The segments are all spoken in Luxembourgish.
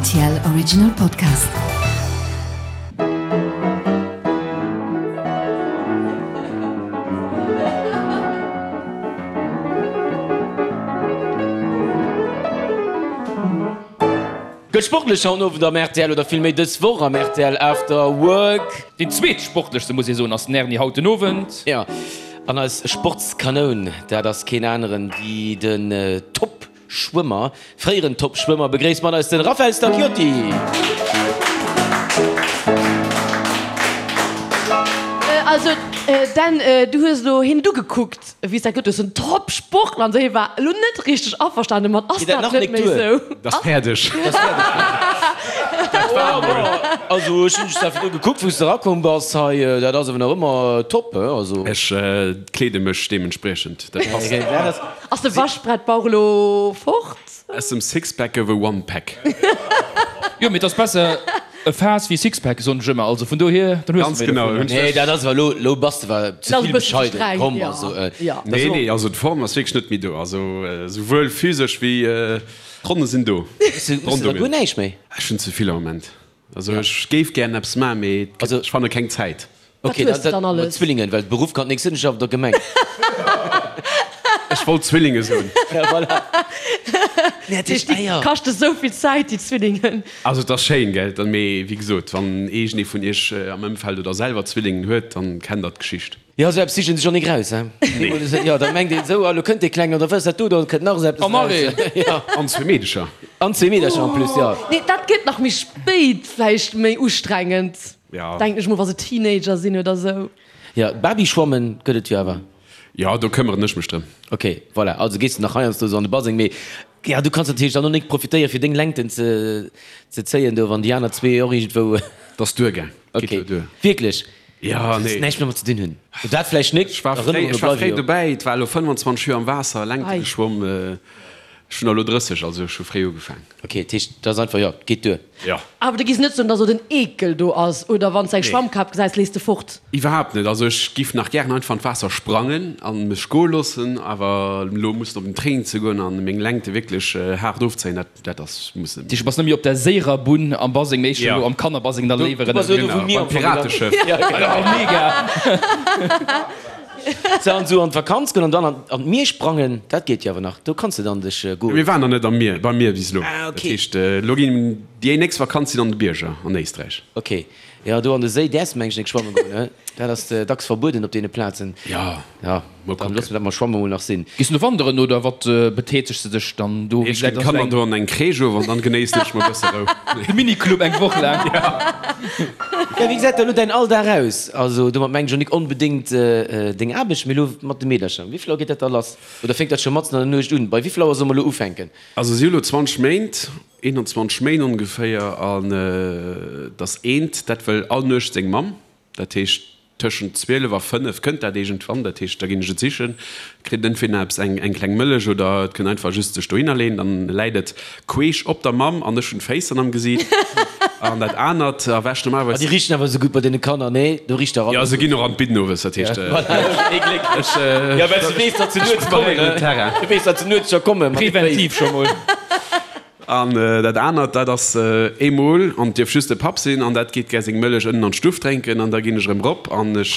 Rtl Original Podcast. Gëtt sportlech haut Owend am rtl oder villméi dës Woch am rtl After Work. Deen zweetsportlechste muss ee soen ass den Erny haut den Owend. Jo, an eis Sportskanoun, dat ass keen aneren wéi den Top-Schwëmmer, fréieren Top-Schwëmmer. Begréisst mat eis den Raphael Stacchiotti! Also Dan, du hues elo hien du gekuckt. Wéi s dat gëtt, hues en Top Sportler an esou, hie war elo net richteg averstane mat, ass dat net méi esou? Dat ass fäerdeg. Dat war emol. Also ech hunn dech da virdru gekuckt, wou s de erakomm bass hei, dat ass awer nach ëmmer top, he? Also. Ech kleede mech deementspriechend, dat passt. Ass de Waschbrettbauch elo fort? Aus dem Sixpack gouf e Onepack. Jo, mee et ass besser e Faass wéi e Sixpack, soen ech ëmmer. Also vun dohier, dann hues Ganz de méi genau. dovunner. Nee, dat ass awer elo, elo bass de awer ze Dat ass e vill bëssen ze bescheiden. streng, Komm, jo. also. Jo. Dat ass Nee, och. nee, also d'Form ass wierklech net méi do. Also souwuel physesch wéi d'Ronne sinn do. Hues de, hues de da guer näischt méi? Ech hunn ze vill am Moment. Also ech géif gären eppes maachen, mee ech fanne keng Zäit. Wat Ok, hues dat de dann mat alles? Zwillingen, well Beruff kann nix sinn, ech schaffen der Gemeng. Ech wollt Zwillinge soen. Ja, voilà. Dat heescht, déi kaschte sou vill Zäit, déi Zwillingen. Also et ass schéin, gell? Mee wéi gesot, wann iergendee vun iech am Ëmfeld oder selwer Zwillingen huet, dann kennt der d'Geschicht. Jo, esou eppes sichen sech och nik raus, he? Nee. Jo, da mengt een esou, ah, lo kënnt dee Klengen, oder wat ass dat do, do kënnt nach esou eppes raus. Jo. An zwee Meedecher. An zwee Meedercher en plus, jo. Nee, dat gëtt nach méi spéit vläicht méi ustrengend, denken ech mol, wa se Teenager sinn oder esou. Jo, Babyschwammen gëtt et jo awer. Jo, do këmmeren ech mech drëm. Ok, voilà, also gees de nach heiansdo esou an de Baseng, mee jo, du kanns natierlech dann och nik profitéieren, fir deng Längten ze ze zéien do, wann déi aner zwee och iergendwou. 't ass duergaang. Ok, Geet jo duer. wierklech? Jo, nee. Näischt méi mat ze dinn hunn. Dat vläicht nik. Ech war fréi, ech war fréi dobäi. Et war elo 25 Joer am Waasser, Längte geschwomm. Ech hunn elo 30, also ech hu fréi ugefaang. Ok, dat heescht, dat ass einfach, jo, geet duer. Jo. Awer du giss net soen, dass elo den Eekel do ass, oder wann s de eng Schwammkap gesäis, lees de fort? Iwwerhaapt net. Also ech giff nach gären einfach an d'Waasser sprangen an mech goe loossen, awer elo mussen op den Training ze goen an meng Längte wierklech haart ofzéien, dat. Dat ass muss net. Du bass net méi op der séierer Bunn am Baseng, mee elo am Kannerbaseng da léiwer ënnerwee. Genau, beim Pirateschëff. Mega! Sou, an sou an d'Vakanz goen an dann an d'Mier sprangen, dat geet jo awer nach. Do kanns de dann dech goen. Mir waren nach net am Mier, beim Mier bis elo. Ah, ok. Dat heescht, elo ginn déi nächst Vakanz sinn an de Bierger an Éisträich. Ok. Jo, do an de Séi däerfs de mengen ech net schwammen goen, ne? Dat ass dacks verbueden op deene Plazen. Jo, Ja, mol dann kucken. loosse mer dat mam Schwammen mol nach sinn. Gees du no wanderen oder wat betätegs de dech dann do? Ech ginn d'Kanner do an eng Crèche of an dann genéissen ech mol e bësse Rou. De Miniclub eng Woch laang. Ja, wéi gesäit da lo däin Alldag aus? Also domat mengen ech och nik onbedéngt deng Aarbecht, mee lo mat de Meedercher. Wéi vill Auer geet dat da lass? Oder fänkt dat scho matzen an der Nuecht un? Bei wéi vill Auer soll mer lo ufänken? Also si hu lo 20 Méint, 21 Méint ongeféier, an et ass eent, dat wëll all Nuecht seng Mamm. Dat heescht, tëschent 12 a 5 kënnt dat iergendwann. Dat heescht, da ginn ech et sichen, kritt entweder eppes, eng eng kleng Mëllech oder et kënnt einfach just sech dohinner leeën. Dann läit et queesch op der Mamm an ech hunn d'Féiss dann am Gesiit. An dat anert erwächt Ah, normalerweis. déi richten awer esou gutt bei deene Kanner, nee? Do richt der Jo, alles se gutt. ginn och an d'Bidden owes, dat heescht, Ee Gléck. ech, Jo, well s du weess, datt se ech nuets kommen, preparéieren den ne? Terrain. Du weess, datt se nuets scho komme mat de Féiss. Preventiv scho mol. An dat anert, dat ass eemol, an et dierf just de Papp sinn, an dat geet gär seng Mëllech ënnen an d'Stuff drénken, an da ginn ech erëm rop an ech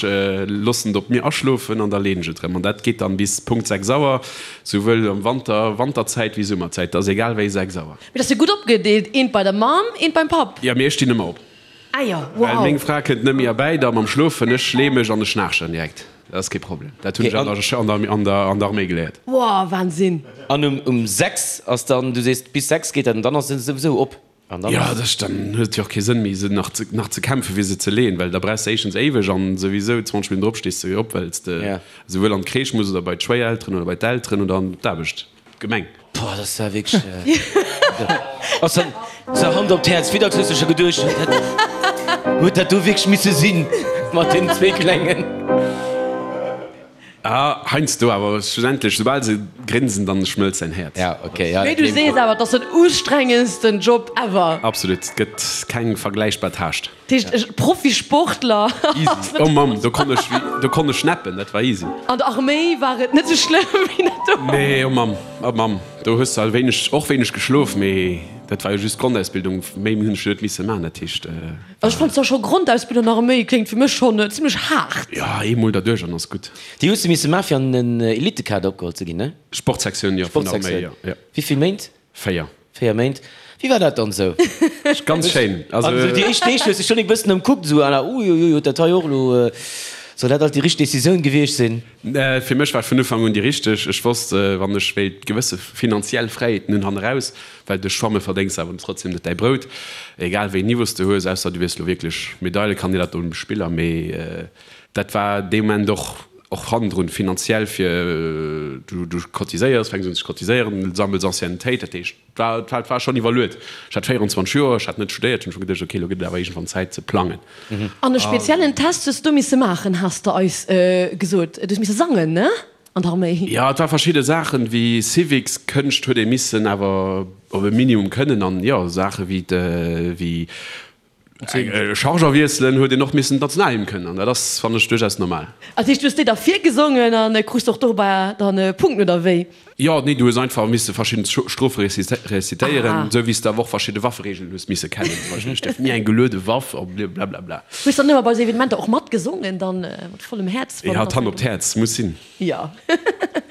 loossen et op mir aschlofen an da leen ech et erëm. An dat geet dann bis Punkt 6 Auer, souwuel am Wanter, Wanterzäit wéi Summerzäit, dat ass egal wéi 6 Auer. Mee dat ass jo gutt opgedeelt, eent bei der Mamm, eent beim Papp. Jo, mee ech stinn ëmmer op. Ah jo, Well wow. meng Fra kënnt net méi erbäi da mam Schlofen, ech lee mech an ech schnaarchen direkt. Dat ass kee Problem. Dat hunn ech an der, an der, an der, an der Arméi geléiert. Wow, Wahnsinn. An um, um 6 ass dann, du sees bis 6 geet dat an dann ass se souwisou op. An dann Jo, ass. dat, dann huet et jo och kee Sënn méi se nach ze, nach ze kämpfen fir se ze leeën, well da brauchs de éischtens éiweg an souwisou 20 Minutten drop stees de op, well s de Ja. esouwuel an d'Crèche muss oder bei d'Schwéierelteren oder bei d'Elteren oder an d'Aarbecht. Gemeng. Boah, dat war wierklech. Ass dann sou Hand op d'Häerz, wéi dacks hues de scho geduecht, huet dat, huet dat do wierklech misse sinn mat deenen zwee Klengen? Ah, heiansdo, awer schlussendlech, soubal se grinsen, dann schmëlzt säin Häerz. Ja, okay, ja, Mee dat du gleewen sees ech. awer, et ass den ustrengendsten Job ever. Absolut, et gëtt keng vergläichbar Tâche. Dat heescht, e Profisportler Easy. Oh Mamm, do konnt ech, do konnt ech schnappen, dat war easy. An der Arméi war et net sou schlëmm wéi dat do. Nee, oh Mamm, oh Mamm, do hues de all wéineg, och wéineg geschlof, mee. Dat war jo just d'Grondausbildung, méi hunn ech jo net misse maachen, dat heescht. Also ech fannen zwar scho Grondausbildung nach méi kléngt fir mech schonn zimlech haart. Jo, eemol derduerch an ass gutt. Déi hues de misse maachen fir an den Elitekader opgeholl ze ginn, ne? Sportsektioun, jo, vun der Arméi, jo. Sportsektioun. Wéi vill Méint? 4. 4 Méint. Wéi war dat dann esou? Ganz schéin. Also An esou déi éischt Deeg hues de schonn e bëssen ëmkuckt, esou à la uiuiui, huet dat hei och elo, soll dat alt déi richteg Decisioun gewiescht sinn? Fir mech war et vun Ufank un déi richteg. Ech wosst, wann ech wéilt gewësse finanziell Fräiheeten hunn hanneraus, well duerch Schwamme verdéngs de awer trotzdem net däi Brout, egal wéi een Niveau s de hues, ausser du wiers elo wierklech Medaillekandidat op Olympesch Spiller, mee dat war dee Moment och och hannendrun finanziell fir, du du cotiséiers, fänks un ze cotiséieren, sammels Anciennetéit, dat heescht et war et war schonn iwwerluet. Ech hat 24 Joer, ech hat net studéiert, hunn scho geduecht, okay, elo gëtt et awer iergendwann Zäit ze plangen. An e speziellen Test hues du misse maachen, has de eis gesot. Du hues misse sangen, ne, an der Arméi? Jo, et war verschidde Saachen, wéi Civics, Kënscht huet ee missen awer op e Minimum kënnen an jo, Saache wéi wéi Charger wiesselen huet een och missen d'Nationalhymn kënnen an dat ass, fannen ech, duerchaus normal. Dat heescht, du hues déi da virgesongen an krus och dobäi dann Punkten, oder wéi? Jo, nee, du hues einfach misse verschidden Strofe rezitéieren, esou wéi s de awer och verschidde Waffereegelen hues misse kennen, zum Beispill, ech dierf ni eng geluede Waff a blablabla. Hues dann ëmmer bei esou Evenementer och matgesongen dann mat vollem Häerz? Jo, d'Hand op d'Häerz muss sinn. Jo.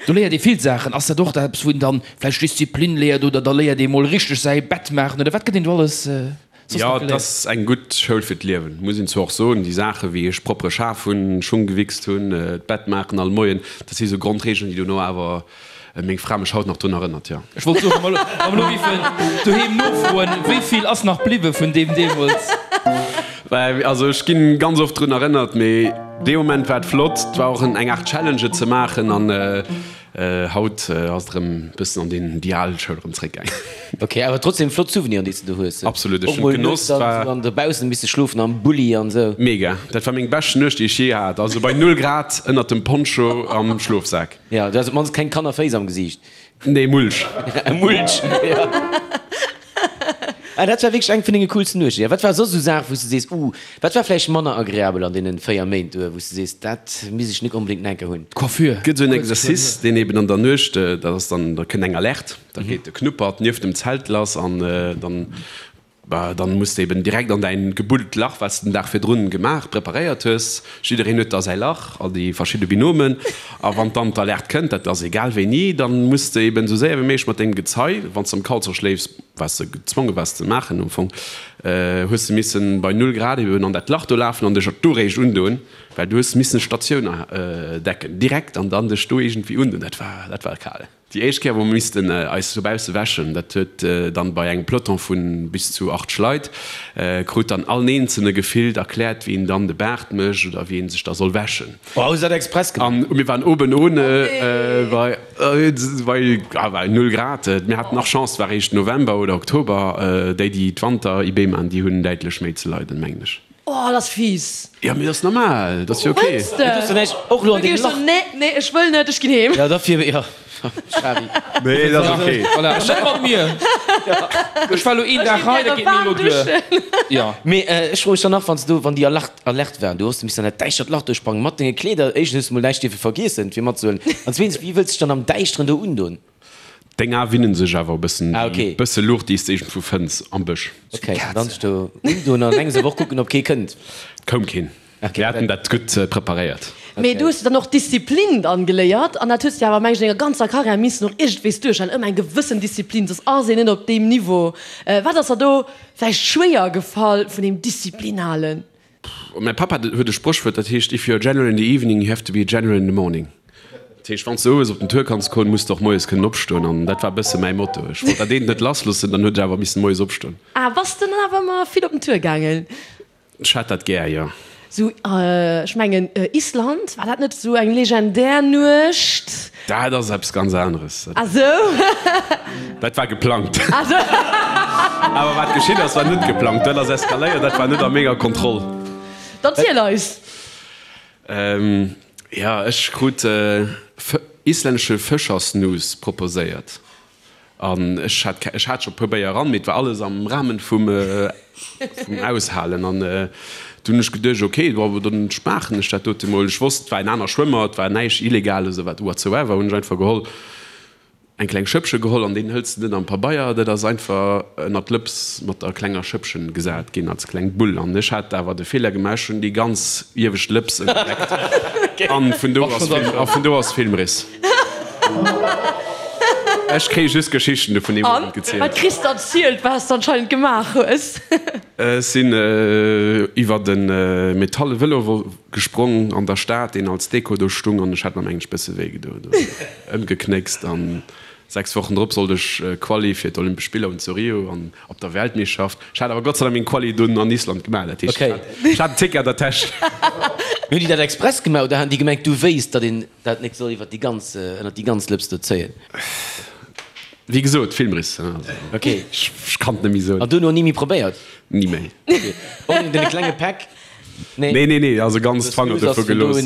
Do léiert ee vill Saachen. Ass dat och eppes, wou een dann vläicht Disziplin léiert oder da léiert ee mol richteg säi Bett maachen oder wat gëtt een do alles? Jo, et ass eng gutt Schoul fir d'Liewen, muss een zwar och soen. Déi Saache wéi ech proppere Schaf hunn, Schung gewichst hunn, d'Bett maachen all Moien, dat si sou Grondregeln, déi dono awer meng Fra mech haut nach drun erënnert, jo. Ech wollt soen, wa mer elo géifen doheem nofroen, wéi vill ass nach bliwwe vun deem deemools? Also ech ginn ganz oft drun erënnert, mee dee Moment war et flott. Et war och eng Aart Challenge et ze maachen an Haut ass et erëm bëssen an deen déi al Schoul erëm zréckgaangen. Ok, awer trotzdem flott Souveniren déi s de do hues. Absolut, ech hunn et genoss. Och mol nuets dann dobaussen misse schlofen am Bulli an esou. Mega, dat war meng bescht Nuecht déi ech jee hat, also bei 0 Grad ënnert dem Poncho am Schlofsak. Jo, du has op mannst keng Kannerféiss am Gesiicht. Nee, Mulch. Mulch, jo. Ah, dat war wierklech eng vun denge coolsten Nuechten. Ja, wat war soss esou Saachen, wou s de sees, uh, wat war vläicht manner agreabel an deenen 4 Méint do, wou s de sees, dat misst ech nik onbedéngt nach eng Kéier hunn? D'Coiffure. Et gëtt esou en Exercice, deen eben an der Nuecht, dat ass dann, da kënnt eng Alerte, da geet de Knuppert nieft dem Zelt lass an dann, bah, dann muss de eben direkt an däin gebuddelt Lach, wat s de den Dag virdrun gemaach, preparéiert hues. Jiddereen huet da säi Lach, all déi verschidde Binomen. A wann dann d'Alerte kënnt, dat ass egal wéini, dann muss de eben esou séier wéi méiglech mat dengem Gezei, wann s de am Kalzer schléifs, wat s de gezwonge waars ze maachen am Fong, hues de missen bei null Grad eben an dat Lach do lafen an dech do réischt undoen, well du hues missen Statioun decken direkt an dann dech do iergendwéi undoen. Dat war, dat war kal. Déi éischt Kéier, wou mer missten eis dobausse wäschen, dat huet dann bei engem Peloton vu bis zu 8 Leit, krut dann all Eenzelne gefillt erkläert, wéi een dann de Baart mécht oder wéi een sech da soll wäschen. Oh, hu se dat express gemaach? An mir waren oben ohne, bei, bei null Grad. Mir haten nach Chance, et war eréischt November oder Oktober. Déi, déi d'Wanter-IB maachen, déi hunn däitlech méi ze leiden, mengen ech. Oh, dat ass fies. Jo, mee dat ass normal, dat ass jo ok. Wëlls de? Du hues och elo an dengem Lach. Nee, nee, ech wëll net, ech ginn heem. Jo, dofir, jo, Shari. Nee, dat ass ok. Voilà, net mat mir. Ech war elo een Dag hei, dat geet mir elo duer. Jo. Mee ech froe mech dann nach, wann s du, wann déi Alerte, Alerte waren, du hues missen an dat däischtert Lach do sprangen, mat denge Kleeder, éischtens hues du mol näischt dierfe vergiessen, fir matzehuelen, an zweetens, wéi wëlls de dech dann am Däischteren do undoen? Deng Ae winnen sech awer e bëssen, Ah, ok. bësse Luucht, déi s de iergendwou fënns am Bësch. Ok, dann sech do undoen an enges awer och kucken, ob kee kënnt. Et koum keen. Ok. Mir haten dat gutt preparéiert. Mee du hues dann och Disziplin dann geléiert an dat hues de awer, meng ech, an denger ganzer Karriär missen och iergendwéis duerchhalen, ëmmer eng gewëssen Disziplin, soss ass een net op deem Niveau. Wat ass der do vläicht schwéier gefall vun deem Disziplin halen? Mäi Pappa huet e Spréchwuert, dat heescht, If you're a general in the evening, you have to be a general in the morning. Dat heescht, wann s de owes op den Tour kanns goen, muss de och moies kënnen opstoen. An dat war e bësse mäi Motto. Ech wollt dat eent net lassloossen, dann huet ech awer missen moies opstoen. Ah, bass de dann awer ëmmer vill op den Tour gaangen? Ech hat dat gär, jo. Sou, ech mengen Island, war dat net sou eng legendär Nuecht? Dat ass eppes ganz aneres. Ah sou. Dat war geplangt. Ah sou. Awer wat geschitt ass, war net geplangt. Dat ass eskaléiert, dat war net a menger Kontroll. Dann ziel eis! Jo, ech krut islännesche Fëschersnus proposéiert. An ech hat, ech hat scho e puer Béier eran, mee et war alles am Rahmen vum, vum Aushalen. An du hunn ech geduecht, ok, bon, dann maachen ech dat dote mol. Ech wosst, et war en aner Schwëmmer, et war näischt Illegales oder wat whatsoever, hunn ech einfach geholl. Eng kleng Schëppche geholl an deen hëls de net am Pabeier, dat ass einfach ënnert d'Lëps mat der klenger Schëppchen gesat ginn als kleng Bull. An ech hat awer de Feeler gemaach, ech hunn déi ganz iewescht Lëps ënnerleckt an vun do ass Film, a vun do ass Filmriss. Ech kréie just Geschichten dovun deem Owend gezielt. An wat kriss de erzielt, wat s de anscheinend gemaach hues? Ech sinn iwwert e metalle Vëlo gesprong an der Stad, deen als Deko do stung, an ech hat mer mengen ech bësse wéi gedoen. Ëmgeknéckst an 6 Wochen drop sollt ech Quali fir d'Olympesch Spiller hunn zu Rio an op der Weltmeeschschaft. Ech hat awer Gott sei Dank meng Quali dunn an Island gemaach, dat heescht ech hat en Ticket an der Täsch. Hunn déi dat express gemaach oder han déi gemengt du wéisst datt een dat nik soll iwwer déi ganz ënnert déi ganz Lëps do zéien? Wéi gesot, Filmriss, also ech kann et net méi soen. An duerno ni méi probéiert? Ni méi. Och net dee klenge Päck? Nee, nee, nee, also ganz d'Fanger dovu gelooss.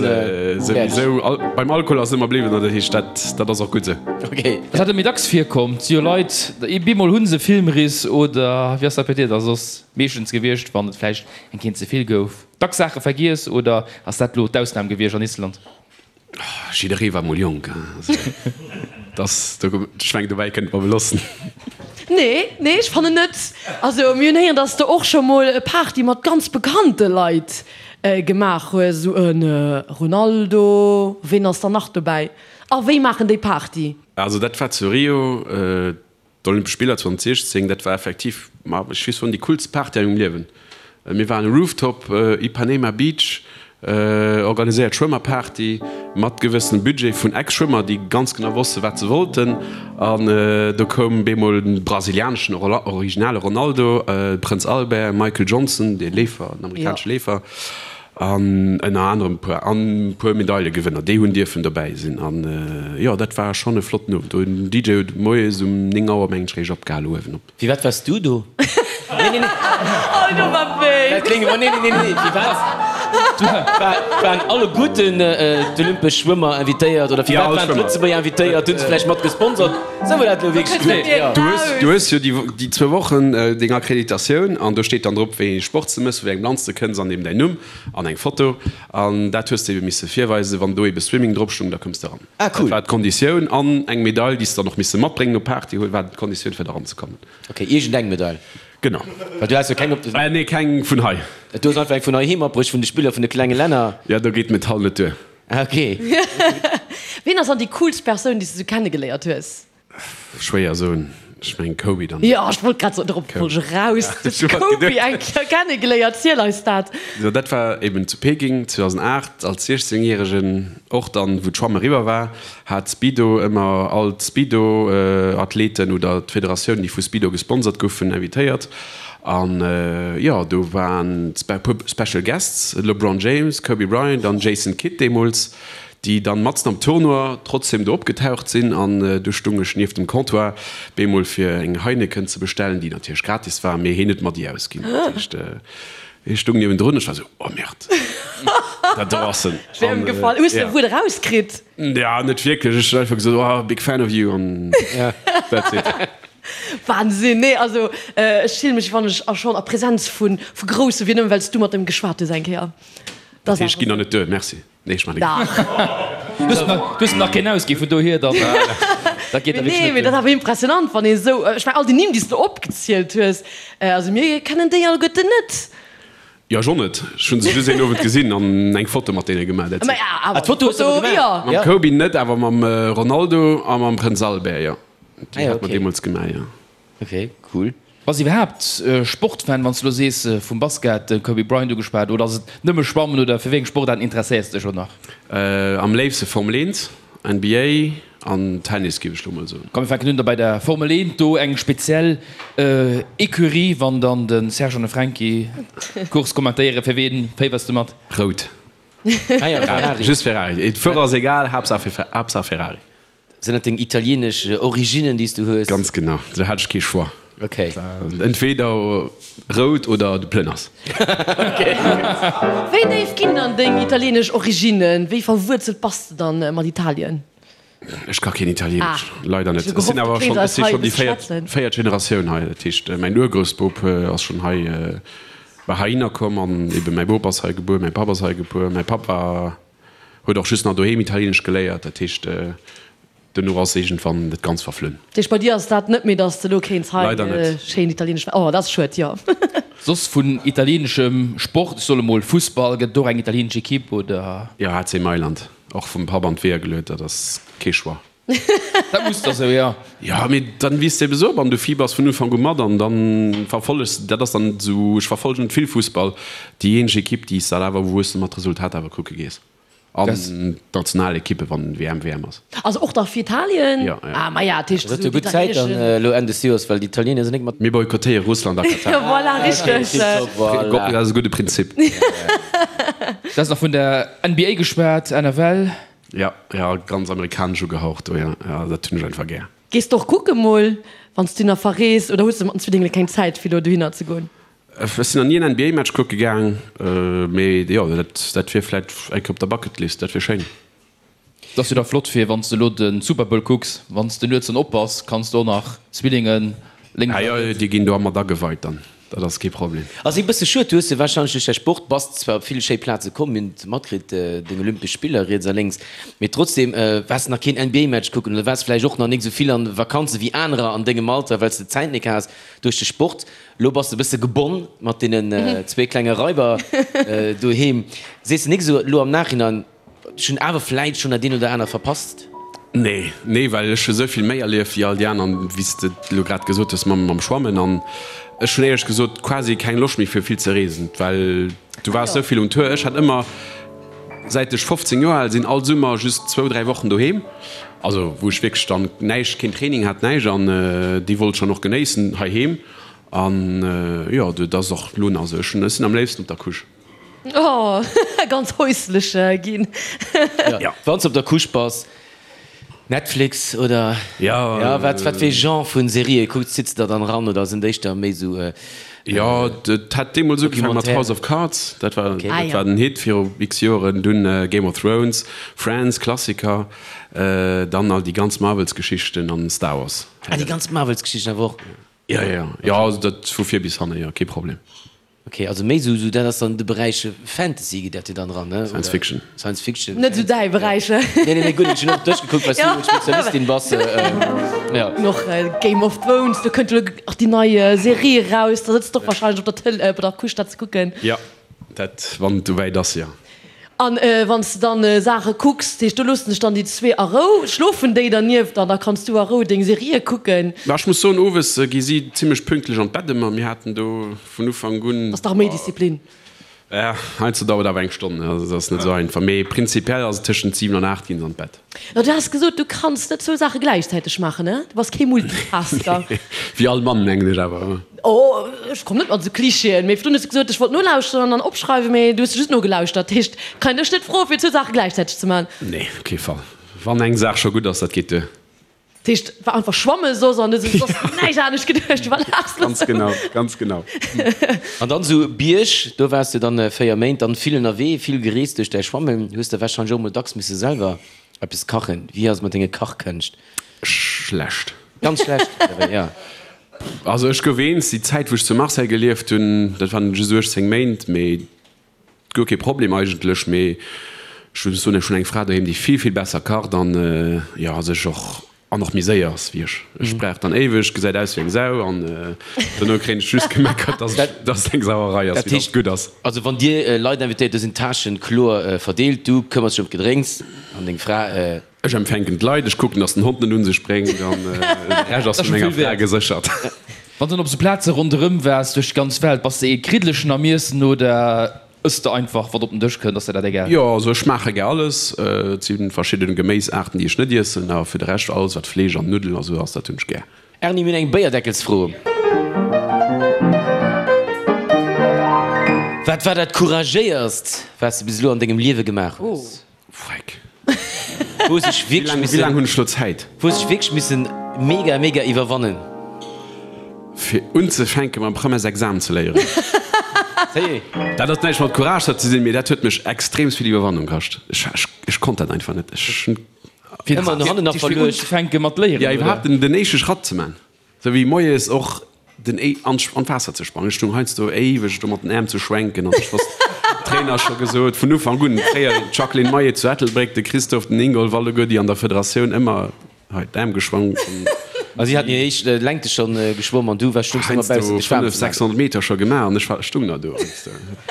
Souwisou, beim Alkohol ass ëmmer bliwwen, an dat heescht, dat, dat ass och gutt esou. Okay. Dat hat méi dacks virkomm. Et si jo Leit, bemol hu se Filmriss oder wéi ass dat bei dir da soss meeschtens gewiescht, wann et vläicht eng Kéint ze vill gouf? Dacks Saache vergiess oder ass dat lo d'Ausnam gewiescht an Island? Jidderee war mol jonk, dass do, ech mengen dobäi kënnt mer belossen. Nee, nee, ech fannen net. Also mir hunn héieren, dass de och scho mol e Party mat ganz bekannte Leit gemaach hues, esou e Ronaldo, ween ass dann nach dobäi a wéi maachen déi Party? Also dat war zu Rio, D'Olympesch Spiller 2016, dat war effektiv, ma ech weess soen, déi coolst Party a mengem Liewen. Mir waren Rooftop, Ipanema Beach, organiséiert Schwëmmerparty mat gewëssenem Budget vun Ex-Schwëmmer, déi ganz genau wosste wat se wollten. An do koum bemol den brasilianeschen originale Ronaldo, Prënz Albert, Michael Johnson, dee Leefer, den amerikanesche Leefer. An ënner anerem e puer an e puer Medailegewënner, déi hunn dierfen dobäi sinn. An jo, dat war schonn e flotten Owend. Do den DJ huet moies um 9 Auer mengen ech réischt opgehal uewen op. Firwat waars du do? Nee, nee, nee. Oh, do war wéi. Dat kléngt ëmmer, nee, nee, nee, nee. Firwat waren alleguerten d'olympesch Schwëmmer invitéiert oder firwat waren d'Lëtzebuerger invitéiert? Hunn se vläicht mat gesponsert? Sou war dat elo wierklech gutt, jo. Du hues, du hues jo déi, déi zwou Wochen deng Akkreditatioun an do steet dann drop, wéi ee Sport s de mëss, vu wéi engem Land s de kënns an eben däin Numm an eng Foto. An dat hues de ebe misse virweisen. Wann do ebe Swimming drop stung, da koums de eran. Ah, cool. Dat war d'Konditioun. An eng Medail, déi s de dann och misse matbréngen op Party huelen, war d'Konditioun fir eranzekommen. Ok, iergendeng Medail. Genau. Well du has jo keng op de. Nee, keng vun hei. Du hues einfach eng vun heiheem matbruecht, vun de Spiller vun de klenge Länner. Jo, do geet d'Metall net duer. Ah, ok. Ween ass dann déi coolst Persoun, déi s de sou kennegeléiert hues? Schwéier soen. Ech mengen Kobe dann. Jo, ech wollt grad soen, dorop wollt ech eraus. Du hues Kobe eng Kéier kennegeléiert, ziel eis dat. Jo, dat war eben zu Peking 2008 als 16 Järegen, och dann wou d'Schwamm eriwwer war, hat Speedo ëmmer all d'Speedo Athleten oder d'Federatioun déi vu Speedo gesponsert goufen invitéiert an jo do waren e puer Special Guests, LeBron James, Kobe Bryant an Jason Kidd deemools, déi dann matzen am Tournoi trotzdem do opgetaucht sinn an du stung ech nieft dem Comptoir bemol fir eng Heineken ze bestellen, déi natierlech gratis war, mee heen huet mer déi ausginn. Dat heescht hee stung niewendrun, ech war sou, oh merde, dat do ass en. Schwéier ëmgefall. Hues de e Wuert erauskritt? Ja, net wierklech, ech hunn einfach gesot, oh big fan of you an that's it. Wahnsinn, nee also ech fillen mech wann ech a schonn a Präsenz vu vu Grousse wier, nëmmen well s du mat em geschwat hues eng Kéier. Dat heescht, ginn der net duer, merci. Nee, ech man Dach. Du hues nach keen ausginn, vun dohier dann, dat geet da wierklech Nee, net mee dat duer. awer impressionant, wann ee sou, ech mengen all déi Nimm, déi s de opgezielt hues, also mir kennen déi alleguerten net. Jo, ech och net. Ech hunn se just een Owend gesinn an eng Foto mat deene gemaach, that's Ma it. ja, awer Ah, d'Foto hues de awer Foto, gemaach? jo. Mam Kobe net, awer mam Ronaldo a mam Prënz Albert, jo. Ah Déi jo, hat mer okay. deemools gemaach, jo. Ok, cool. Bass iwwerhaapt Sportfan, wann s du elo sees vum Basket, de Kobe Bryant ugeschwat, oder ass et nëmme Schwammen oder fir wéi eng Sportaarten interesséiers de dech och nach? Am léifste Formel 1, NBA an Tennis géif ech lo mol soen. Komm mir fänken un da bei der Formel 1, do eng speziell Ecurie, wann dann de Serge an de Franky d'Course kommentéieren, fir ween féiwers de mat? Rout. Ah jo, Ferrari. Just Ferrari, d'Fuerer ass egal, Haaptsaach Ferrari. Sinn dat deng italienesch Originnen, déi s du hues? Ganz genau, do hat ech kee Choix. Ok. Entweder rout oder de plënners. Ok. Wéi déif ginn dann deng italienesch Originnen? Wéi verwuerzelt bass de dann mat Italien? Ech ka keen Italienesch, Ah, leider net. ech hu Ech sinn gehofft, du awer kéints schonn, ech eis si hei e schonn déi bësse véiert, schwätzen. véiert Generatioun hei. Dat heescht, mäin Urgroussbop ass schonn hei, war heihinner komm an ebe mäi Bop ass hei gebuer, mäi Papp ass hei gebuer. Mäi Papp war, huet och just nach doheem Italienesch geléiert. Dat heescht. Dono ass iergendwann dat Ganzt verflunn. Dat heescht, bei dir ass dat net méi, dass de elo kéints hei Leider net. schéin italieenesch, oh, dat ass schued, jo. Soss vun italieeneschem Sport, ech soll emol Fussball, gëtt et och eng italieenesch Ekipp, oder? Jo, AC Mailand. Och vum Papp an d'Weeër geluet, dat ass kee Choix. Dat muss da sou, jo. Jo, mee dann wiisst de eben esou op an du fibers vun Ufank u mat an dann verfollegs de, dat ass dann esou, ech verfollegen net vill Fussball, déi eenzeg Ekipp, déi s de awer, wou s de mat Resultat awer kucke gees. An d'Nationalekippe wann WM WM ass. Also och da fir Italien? Jo, jo. Ah, maja, dat heescht Dat huet jo gutt Zäit dann elo Enn des Joers, well d'Italiener sinn nik mat. Mir boykottéiere Russland a Katar. Jo, voilà, richteg. Voilà. Dat ass e gudde Prinzip. Du has nach vun der NBA geschwat, NFL. Jo, jo, ganz amerikanesch ugehaucht do, jo, jo, dat hunn ech einfach gär. Gees de och kucke mol, wann s du nach verrees, oder hues de mat den Zwillingen keng Zäit fir elo dohinner ze goen? Ech sinn nach ni en NBA-Match kucke gaang, mee jo, dat wier vläit eng Kéier op der Bucketlist, dat wier schéin. Et ass jo da flott fir wann s de elo de Super Bowl kucks, wann s de nuets dann op bass, kanns de och nach Zwillingen lénks a riets. Ah jo, déi ginn do mat ageweit dann, dat ass kee Problem. Ass ee bësse schued, du hues jo wahrscheinlech duerch däi Sport, bass zwar op vill schéi Plaze komm, mir hunn et matkritt, deng Olympesch Spiller riets a lénks, mee trotzdem waars de nach keen NBA-Match kucken oder waars vläicht och nach nik esou vill an Vakanze wéi anerer an dengem Alter, well s de d'Zäit nik has duerch de Sport. Lo bass de bësse gebonn mat deenen zwee klenge Raiber doheem. Sees de nik esou elo am Nachhinein, ech hunn awer vläit schonn dat eent oder anert verpasst? Nee, nee, well ech hu sou vill méi erlieft wéi all déi aner, wéi s de elo grad gesot hues mam Schwammen. An ech hunn éierlech gesot quasi keng Loscht méi fir vill ze reesen, well du waars sou vill um Tour. Ech hat ëmmer, säit ech 15 Joer al sinn, all Summer just zwou, dräi Wochen doheem, also wou ech wierklech dann näischt, keen Training hat, näischt an déi wollt ech dann och genéissen heiheem. An jo, dat ass och elo nach esou. Ech hunn, ech sinn am léifsten op der Couche. Oh, ganz häuslech ginn. Jo, wann s de op der Couche bass, Netflix oder jo, wat wat fir ee Genre vun Serië kucks, sitz de der dann eran oder sinn et éischter méi esou Jo, et hat deemools ugefaangen mat House of Cards, dat war dat war den Hit viru x Joeren, dunn Game of Thrones, Friends, Klassiker, dann all déi ganz Marvels-Geschichten an Star Wars. Ah, déi ganz Marvels-Geschichten awer och? Jo, jo, jo, also dat vu vir bis hanne, jo, kee Problem. Ok, also méi sou, sou dat ass dann de Beräich Fantasy geet dat jo dann eran, ne? Science Fiction. Science Fiction. Net sou däi Beräich. Nee, nee, nee, guer net. Ech hunn och duerchgekuckt, well s du jo Spezialistin bass. Jo. Och Game of Thrones, do kënnt jo elo och déi nei Serie eraus, da sëtz de och wahrscheinlech op der Tël, op der Couche dat ze kucken. Jo, dat, wann et esouwäit ass, jo. An wann s de dann Saache kucks, dat heescht do loossen dech dann déi zwee a Rou, schlofen déi dernieft an da kanns du a Rou deng Serië kucken. Ma ech muss soen, owes gi si zimmlech pünktlech an d'Bett ëmmer. Mir haten do vun Ufank un. Ass dach méi Disziplin. Ja, heiansdo dauert awer eng Stonn, also dat ass net esou einfach. Mee prinzipiell ass et tëschent 7 an 8 ginn se an d'Bett. No, du has gesot, du kanns net zwou Saache gläichzäiteg maachen, ne? Du bass kee Multitasker. Wéi all Mann, mengen ech awer. Oh, ech komm net mat esou Klischeeën. Mee virdrun hues du gesot, ech wollt nolauschteren an dann opschreiwen, mee du hues just nogelauschtert. Dat heescht, kann een dech net froen, fir zwou Saache gläichzäiteg ze maachen. Nee, op kee Fall. Wann eng Saach scho gutt ass, dat geet duer. Dat heescht, war einfach schwamme soss an du hues soss näischt anescht geduecht, du war laachs lo Ganz genau, ganz genau. An dann esou Bierg, do waars du dann 4 Méint, dann vill ënnerwee, vill gereest duerch däi Schwammen. Hues de warscheinlech och mol dacks misse selwer eppes kachen. Wéi ass et mat denge Kachkënscht? Schlecht. Ganz schlecht, ja. Also ech gouf eens, déi Zäit wou ech zu Marseille gelieft hunn, dat waren just 18 Méint, mee guer kee Problem eigentlech, mee ech muss soen, ech hunn eng Fra doheem, déi vill, vill besser kacht an jo sech och an och méi séier ass wéi ech. Ech brauch dann éiweg, gesäit aus wéi eng Sau an dono kréien ech just gemeckert, dass ech, dass et eng Sauerei ass, mee dass et gutt ass. Also wann Dir Leit invitéiert, do sinn d'Tâchen kloer verdeelt, du këmmers dech ëm d'Gedrénks an deng Fra. Ech empfänken d'Leit, ech kucken, dass den Hond net un sech bréngt an de Rescht ass vun menger Fra geséchert. Wann s de op sou Plaze ronderëm waars duerch d'ganz Welt, bass de ee Kriddelechen am Iessen oder ëss de einfach wat op den Dësch kënnt? Ass der dat egal? Jo, also ech schmaache gär alles. Et si verschidden Geméisaarten, déi ech net iessen, awer fir de Rescht alles wat Fleesch an Nuddelen a sou ass, dat hunn ech gär. Erni, mir hunn eng Béierdeckelsfro. Wat war dat couragéierst, wat s de bis elo an dengem Liewe gemaach hues? Freck. Wou sech wierklech missen. Wéi laang hunn ech lo Zäit? Wou sech wierklech missen mega mega iwwerwannen. Fir unzefänke mam Premièresexamen ze léieren. Dat ass näischt mat Courage ze sinn, mee dat huet mech extreemst vill Iwwerwannung kascht. Ech ech konnt dat einfach net. Ech hunn. Ëmmer no hannen nach verluecht. Fir unzefänke mat léieren, oder? Ja, iwwerhaapt den éischte Schratt ze man. Sou wéi moies och den Éi an an d'Waasser ze sprangen. Ech stung heiansdo éiweg do mat den Äerm ze schwenken an ech wosst, Trainer scho gesot vun Ufank un, fréier d'Jacqueline Maillet zu Ettelbréck, de Christophe, den Ingolf, alleguer déi an der Federatioun ëmmer. Hei d'Aarm geschwongen. A si haten hir éischt Längte schonn geschwomm an du war stungs ëmmer baussent de Schwamm. 600 Meter scho gemaach an ech war stung nach do.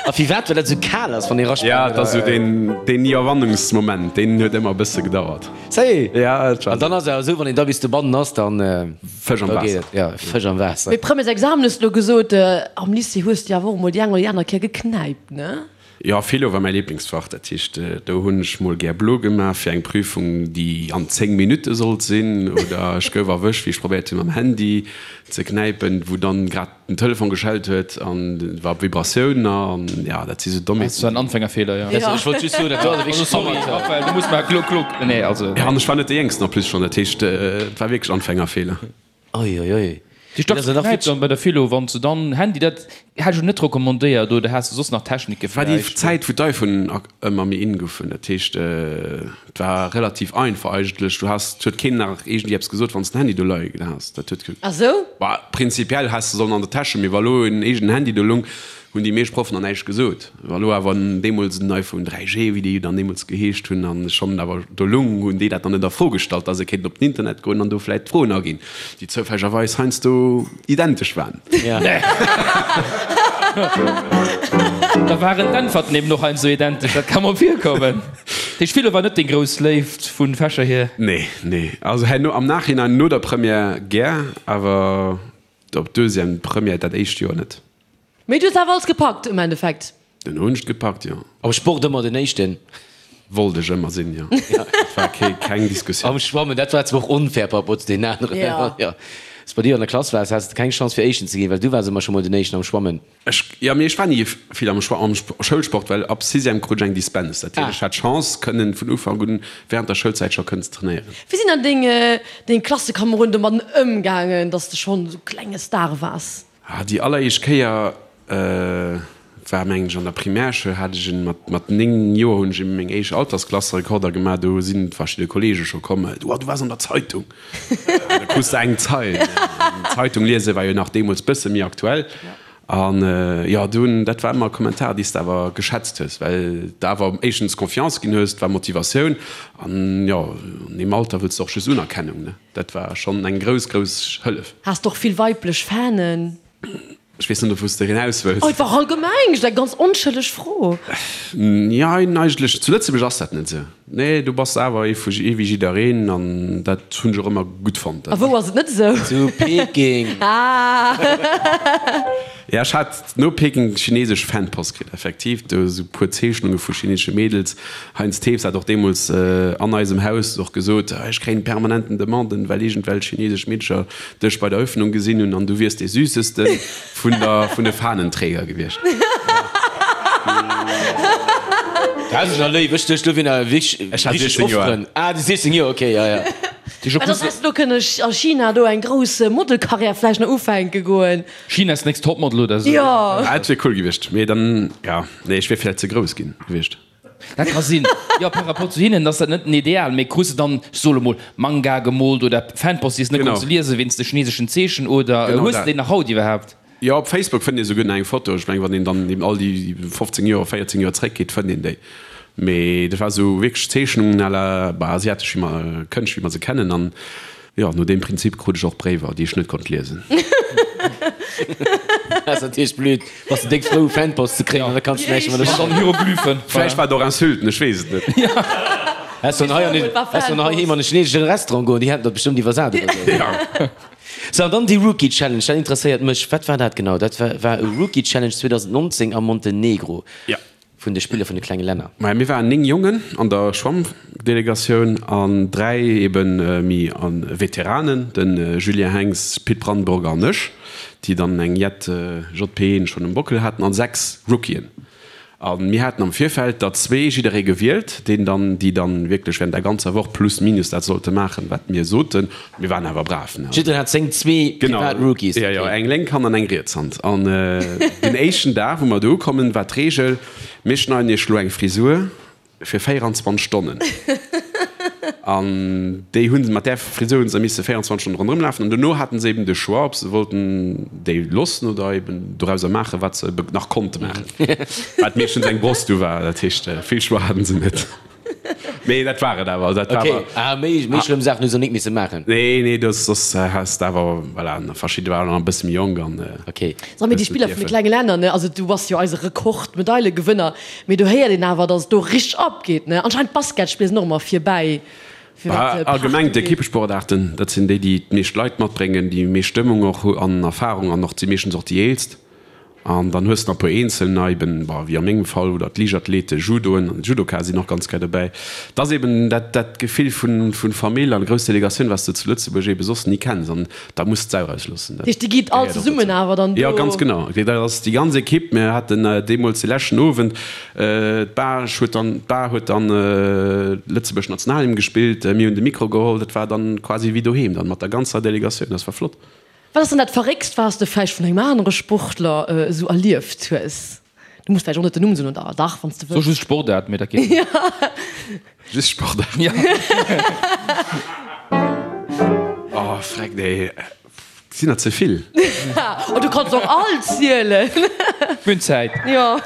A firwat? Well dat esou kal ass wann ee rasprangt? Ja, et ass esou deen deen Iwwerwannungsmoment, deen huet ëmmer e bësse gedauert. Sérieux? Ja, et war. An dann ass et awer esou, wann een da bis dobannen ass, dann Fësch am Waasser. Ja, Fësch am Waasser. Mee Premièresexamen hues de elo gesot, am Lycée hues de awer och emol déi eng oder déi aner Kéier geknäipt, ne? Jo, Philo war mäi Lieblingsfach. Dat heescht, do hunn ech mol gär blo gemaach fir eng Prüfung, déi an 10 Minutte sollt sinn. Oder ech gouf erwëscht, wéi ech probéiert hunn, mam Handy ze knäipen, wou dann grad den Telefon geschellt huet an et war op Vibratioun. An jo, dat si sou Dommheeten. Dat war en Anfängerfehler, jo. Ech wollt just soen, dat do ass wierklech. Also sorry, Raphaël, du muss mar gluck, gluck. Nee, also. Jo, an ech war net dee Jéngsten en plus schonn. Dat heescht, et war wierklech Anfängerfehler. Oi, oi, oi. Déi dacks geknäipt dann bei der Philo, wann se dann Handy, dat hätt ech net recommandéiert, oder has de soss nach Technike War déi vläicht? Zäit wou d'Iphone ëmmer méi in goufen, dat heescht et war relativ einfach eigentlech, du has, et huet keen nach iergendwéi eppes gesot wann s den Handy do leie has, dat huet, Ah sou? bah prinzipiell häss de sollen an der Täsch hunn, mee wa lo en eegenen Handy do lung, hunn déi meescht Proffen dann näischt gesot. Wa lo awer deemools en iPhone 3G, wéi déi dann deemools geheescht hunn, an schonn awer do lung, hunn déi dat dann net a Fro gestallt, dass e kéint op den Internet goen an do vläit d'Froen aginn, déi zoufällegerweis heiansdo identesch waren. Da waren d'Äntwerten eben och heiansdo identesch, dat ka mol virkommen. Dat heescht, Philo war net deng grouss Léift vu Fächer hier? Nee, nee. Also herno am Nachhinein, no der Première gär, awer op Deuxième, Première dat éischt Joer net. Mee du hues awer alles gepackt um Endeffekt? Den hunn ech gepackt, jo. Am Sport ëmmer den éischten? Wollt ech ëmmer sinn, jo. Dat war kee, keng Diskussioun. Am Schwammen, dat war zwar och onfair par rapport zu deenen aneren. Jo. Jo. S, Bei dir an der Klass waars, has de keng Chance fir éischten ze ginn, well du waars ëmmer scho mol den éischten am Schwammen. Ech, jo, mee ech war ni vill am Schwa, am Schoulsport, well ab Sixième krut ech eng Dispense. Dat heescht, ech hat d'Chance kënnen vun Ufank un während der Schoulzäit scho kënnen ze trainéieren. Wéi sinn dann deng, deng Klassekomeroden domadden ëmgaangen, dass de schonn esou klenge Star waars? Ah, déi alleréischt Kéier war mengen ech an der Primärschoul, hat ech en mat mat 9 Joer hunn ech eben meng éischt Altersklasserekorder gemaach, do sinn verschidde Kollege scho komm, du, du waars an der Zeitung. An da krus de eng Zeil. An Zeitung liese war jo nach deemools bësse méi aktuell. An jo, do hunn, dat war ëmmer e Kommentar, dee s de awer geschätzt hues, well de awer éischtens Confiance ginn hues, et war Motivatioun an jo, an deem Alter wëlls de och just Unerkennung, ne. Dat war schonn eng grouss, grouss Hëllef. Has de och vill weiblech Fanen? Ech weess net, op wou s de hinaus wëlls. Oh, et war allgemeng just eng ganz onschëlleg Fro. Jein, eigentlech, zu Lëtzebuerg ass dat net esou. Nee, do bass de awer ee vu, ee wéi jiddereen an dat hunn ech och ëmmer gutt fonnt. A wou ass et net esou? Zu Peking. Ah! Ja, ech hat no Peking chinesesch Fanpost kritt, effektiv, do esou puer Zeechnunge vu chinesesche Mädels. Heinz Thews hat och deemools an eisem Haus och gesot, ech kréien permanenten Demanden, well iergendwelch chinesesch Meedercher dech bei der Eröffnung gesinn hunn an du wiers dee Süßeste vun der, vun de Fahnenträger gewiescht. Dat ass jo léif, ech duecht elo wier nach wierklech Ech hat 16 Joer. Ah, du 16 Joer, okay, ja, ja. Mä dann häss de do kënne a China do eng grouss Modelkarriär vläicht nach ufänke goen. China's next Topmodel oder esou. Jo. Dat wier cool gewiescht, mee dann, ja, nee, ech wier vläicht ze grouss ginn gewiescht. Dat ka sinn. Jo, par rapport zu hinnen ass dat net den Ideal, mee krus de dann, ech soe lo mol, Manga gemoolt oder Fanpost, déi s de net Genau. konns liesen wéinst de chineseschen Zeechen oder Genau hues de dat. déi nach haut iwwerhaapt? Jo, op Facebook fënnt ee souguer nach eng Foto. Ech mengen, wann een dann eben all déi 15 Joer, 14 Joer zréckgeet, fënnt een déi. Mee dat war esou wierklech Zeechnungen à la, bah, asiatesch, wéi mer, Kënscht, wéi mer se kennen. An Jo, no deem Prinzip krut ech och Bréiwer, déi ech net konnt liesen. Dat ass natierlech blöd, bass de déck frou Fanpost ze kréien an da kanns de näischt mat An dann Hieroglyphen. Vläicht war et och Insulten, ech weess et net. Häss sollen hei an den, häss sollen heiheem an e chineseschen Restaurant goen, déi hätten dat bestëmmt iwwersat oder sou. Sou, an dann déi Rookie Challenge, dat interesséiert mech. Wat war dat genau? Dat war war e Rookie Challenge 2019 am Montenegro. Jo. Vun de Spiller vun de klenge Länner. Maja, mir waren 9 Jongen an der Schwammdelegatioun an 3 eben méi Veteranen, de Julien Henx, Pit Brandburger an ech, déi dann eng jett JPen schonn um Bockel haten, an 6 Rookien. A mir haten am Virfeld der zwee jidderee gewielt, deen dann, déi dann wierklech während der ganzer Woch plus minus dat sollte maachen, wat mir soten. Mir waren awer brav, ne? Jiddereen hat seng zwee privat Rookies. Genau, jo, jo, eng lénk Hand an eng riets Hand. An den éischten Dag, wou mer do ukommen, war d'Reegel, Mir schneiden iech elo eng Frisur fir 24 Stonnen. An déi hunn, mat där Frisur hunn se misse 24 Stonnen ronderëm lafen. An dono haten se eben de Choix, ob se wollten déi loossen oder eben dorauser maachen, wat se nach konnte maachen. Wat meeschtens eng Bross du war. Dat heescht, vill Choix haten se net. Mee dat war et awer. Dat war Okay, ah, méi, méi schlëmm Saachen hu se nik misse maachen. Nee, nee, do soss has de awer, voilà, verschidde waren nach e bësse méi jonk an. Okay. So, mee déi Spiller vun de klenge Länner, ne, also du bass jo eise Rekord-Medaillegewënner, mee do héiert een awer, datt et do richteg abgeet, ne? Anscheinend d'Basketspiller sinn och ëmmer virbäi, fir wat Party Allgemeng ugeet. d'Equippesportaarten, dat sinn déi, déi d'meescht Leit matbréngen, déi meescht Stëmmung och hu an Erfarung an och si meeschtens och déi eelst. An dann hues de nach e puer Eenzelner, eben, bon, wéi a mengem Fall, oder d'Liichtathleten, Judoen an Judoka sinn och ganz gär dobäi. Et ass eben dat, dat Gefill vun, vun Famill an grouss Delegatioun, wat s de zu Lëtzebuerg ebe soss ni kenns. An da muss d'Sau rausloossen. Dat heescht, Dir gitt all gehéiert och zesummen dozou. awer dann Jo, do? ganz genau. Dat ass déi ganz Ekipp. Mir haten deemools de leschten Owend, d'Bar huet dann, d'Bar huet dann Lëtzebuerg Nationalhymn gespillt, mir hunn de Mikro geholl. Dat war dann quasi wéi doheem dann, mat der ganzer Delegatioun. Dat war flott. Wat ass dann dat Verréckst, wat s de vläicht vun engem anere Sportler esou erlieft hues? Du muss vläicht och net den Numm soen, oder dach, wann s de So wëlls. just Sportaart, mee dat geet net. Just Sportaart. Ja. Oh, freck, nee, sinn der ze vill. Oh, du kanns och all zielen. Mir hunn Zäit. Jo.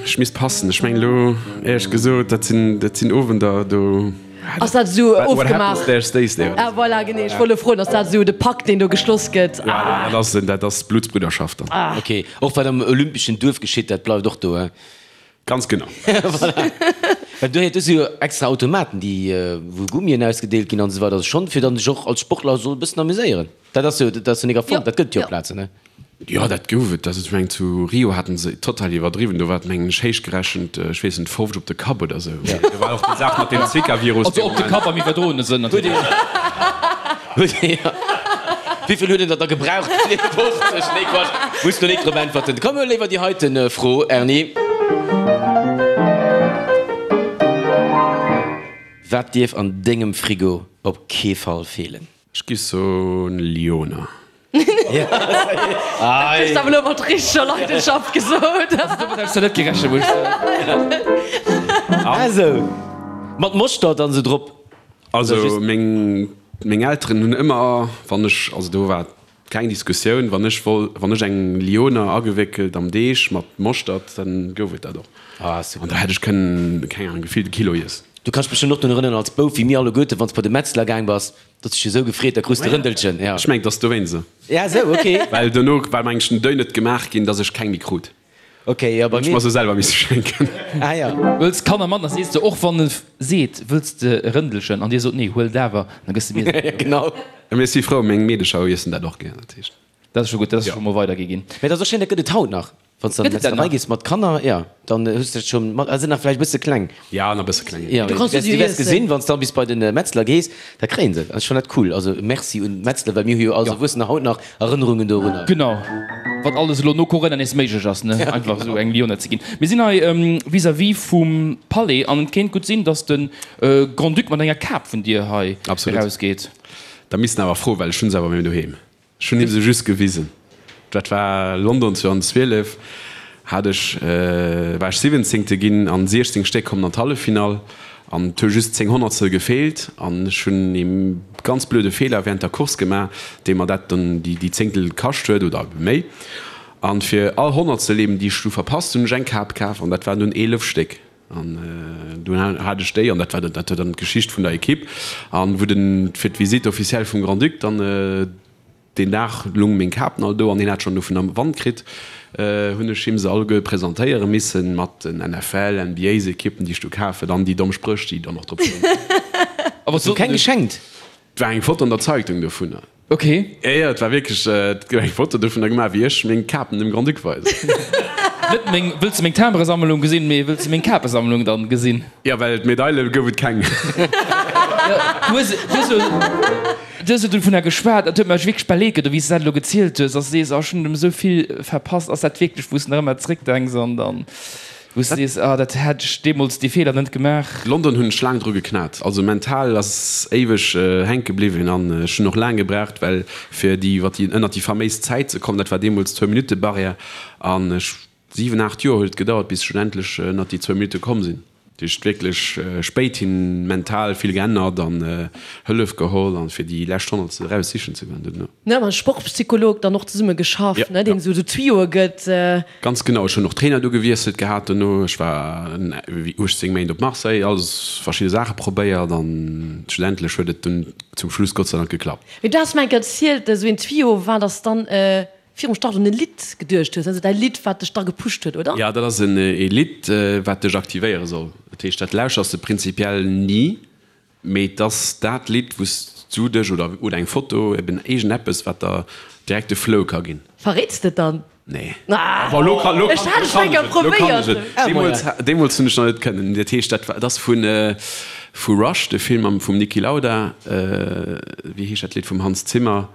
Ech misst passen. Ech mengen elo, éierlech gesot, dat sinn, dat sinn Owender, do. Ass dat esou What ofgemaach? happens there stays there. Ah voilà, genee. Ech wollt elo froen, ass dat esou de Pakt, deen do geschloss gëtt? Ja, dat ass, dat ass Bluttsbrüderschaft dann. Ah. Ok, och wat am olympeschen Duerf geschitt, dat bleift och do, he? Ganz genau. Voilà. Well do do si jo extra Automaten, déi, wou Gummien ausgedeelt ginn an esou weider. Also schonn, fir dann sech och als Sportler soll e bëssen amuséieren. Dat ass jo, dat ass jo nik erfonnt, dat gëtt et jo op Plazen, ne? Jo, dat gouf et. Also ech mengen zu Rio haten se total iwwerdriwwen. Do war et mengen ech héichgerechent, ech weess net, 50 op de Kapp oder esou. Do war och déi Saach mat deem Zika-Virus. Also op de Kapp am iwwerdroene Sënn natierlech. Wéivill huet en der da gebraucht? 50? Nee, Quatsch, muss do nik drop äntwerten. Komm, huel léiwer déi heiten Fro, Erny. Wat dierf an dengem Frigo op kee Fall feelen? Ech gi soen Lyoner. Dat hues de awer elo mat richteger Leidenschaft gesot. Also domat hätt ech zwar net gerechent, muss ech soen. Ah sou. Mat Moschter dann sou drop? Also meng meng Elteren hunn ëmmer, wann ech, also do war keng Diskussioun, wann ech woll, wann ech eng Lyoner agewéckelt am Deeg mat Moschtert, dann gouf et dat och. Ah super. An da hätt ech kënnen, keng Ahnung, gefillt e Kilo iessen. Du kanns dech bestëmmt och drun erënneren als Bouf, wéi mir alleguerten, wann s bei de Metzler gaang bass, Datt sech esou gefreet, da krus de Rëndelchen, ja. Ech mengen, et ass dowéinst esou. Ja, esou, ok. Well dono war mengen ech den Deuil net gemaach ginn, datt ech keng méi krut. Ok, jo, bei Hunn ech mir. mer se selwer misse schenken. Ah, ja. Wëlls d'Kanner mat, da sees de och, wann e seet, wëlls de e Rëndelchen, an dir sot, nee, huel et awer, da gëss de mir se. Ja, genau. Mee ech si frou, meng Meedecher iessen dat och gär, dat heescht. Dat ass scho gutt, dat ass scho mol weidergi ginn. Mee dat ass och schéin, dat gëtt et haut nach. Wann s de an Gëtt et dat d'Metzlerei nach? gees mat Kanner, jo, dann hues de dat scho mat. Ah, sinn nach vläicht e bësse kleng. Ja, nach e bësse kleng. Jo, Du kanns du se wäers iessen. gesinn, wann s de dann bis bei de Metzler gees, da kréien se et. Ech fannen dat cool. Also Merci un d'Metzler, well mir hu jo als Erwuessener haut nach Erënnerungen dorunner. Genau, wat alles elo no Corona nees méiglech ass, ne, einfach esou eng Lione ze ginn. Mir sinn hei vis-à-vis vum Palais an et kéint gutt sinn, datt de Grand-Duc mat enger Kap vun dir hei Absolut. erausgeet. Da misst en awer froen, well ech hunn se awer méi doheem. Ech hunn him se just gewisen. Dat war London 2012, hat ech, war ech Siwwenzéngte ginn an 16 Stéck kommen an d'Halleffinall an et hu just 10 Honnertstel gefeelt an ech hunn ee ganz blöde Feeler während der Course gemaach, dee mer dat dann déi Zéngtel kascht huet oder ebe méi. An fir all Honnertstel eben déi ech du verpasst hunn, hunn ech eng Kap kaf an dat waren dunn 11 Stéck. An dunn hat ech déi, an dat war dat war dann d'Geschicht vun der Equipe, an wou den fir d'Visite officielle vum Grand-Duc dann deen Dag lung meng Kapen all do an hien hat schonn dovun am Wand kritt, hunn ech him se alleguer presentéiere missen mat den NFL, NBA-s-Equippen déi ech du kaf huet an déi domm Spréch déi dann och drop stoungen. A wat Hues du sot keng en? geschenkt? Et war eng Foto an der Zeitung dovunner. Ok. Jo, jo, et war wierklech, et gouf eng Foto dovunner gemaach, wéi ech meng Kapen dem Grand-Duc weisen. Net meng, wëlls de meng Timberesammlung gesinn, mee wëlls de meng Kapesammlung dann gesinn? Jo, well d'Medaile gouf et keng. Jo, du hues, du hues jo, du hues jo dovunner geschwat, dat huet mech wierklech bal leed gedoen, wéi s de dat elo gezielt hues, dass de sees, oh, ech hunn esou vill verpasst. Ass dat wierklech, wou s de nach ëmmer zréckdenks an dann. Wou s de sees, ah dat hätt ech deemools dee Feeler net gemaach. London hunn ech laang dru geknat. Also mental ass éiweg hänke bliwwen an ech hunn och laang gebraucht, well fir déi iwwer déi ënnert déi faméis Zäit ze kommen, dat war deemools zwou Minutte Barrière an ech 7, 8 Joer huet et gedauert bis ech schlussendlech ënnert déi zwou Minutte komm sinn. Dat heescht wierklech spéit hin mental vill geännert an Hëllef geholl an fir déi lescht Honnertstel eraus sichen ze goen duerno. Ne, mam Sportpsycholog dann och zesumme geschafft, ne, deen esou Tuyauxe gëtt. Ganz genau, ech hunn och Trainer du gewiesselt gehat dono. Ech war wéi 18 Méint op Marseille, alles verschidde Saache probéiert an schlussendlech huet et dunn zum Schluss Gott sei Dank geklappt. Mee du has mer enk erzielt, esou een Tuyau war, dass dann virum Start un e Lidd geduecht hues, also däi Lidd, wat dech da gepusht huet, oder? Jo, dat ass en e Lidd, wat dech aktivéiere soll. Dat heescht, dat lauschers de prinzipiell ni, mee et ass dat Lidd, wou s du dech, oder oder eng Foto, eben iergendeppes, wat der direkt de Flow ka ginn. Verréits de et dann? Nee. Ah, Bon, lo kann, lo ech kann, hat lo et kann eng Kéier ech et, lo kann ech probéiert. et. Deemools, deemools hunn ech nach net kënnen. Dat heescht, dat war, dat ass vun, vu Rush, de Film am, vum Niki Lauda, wéi heescht dat Lidd vum Hans Zimmer?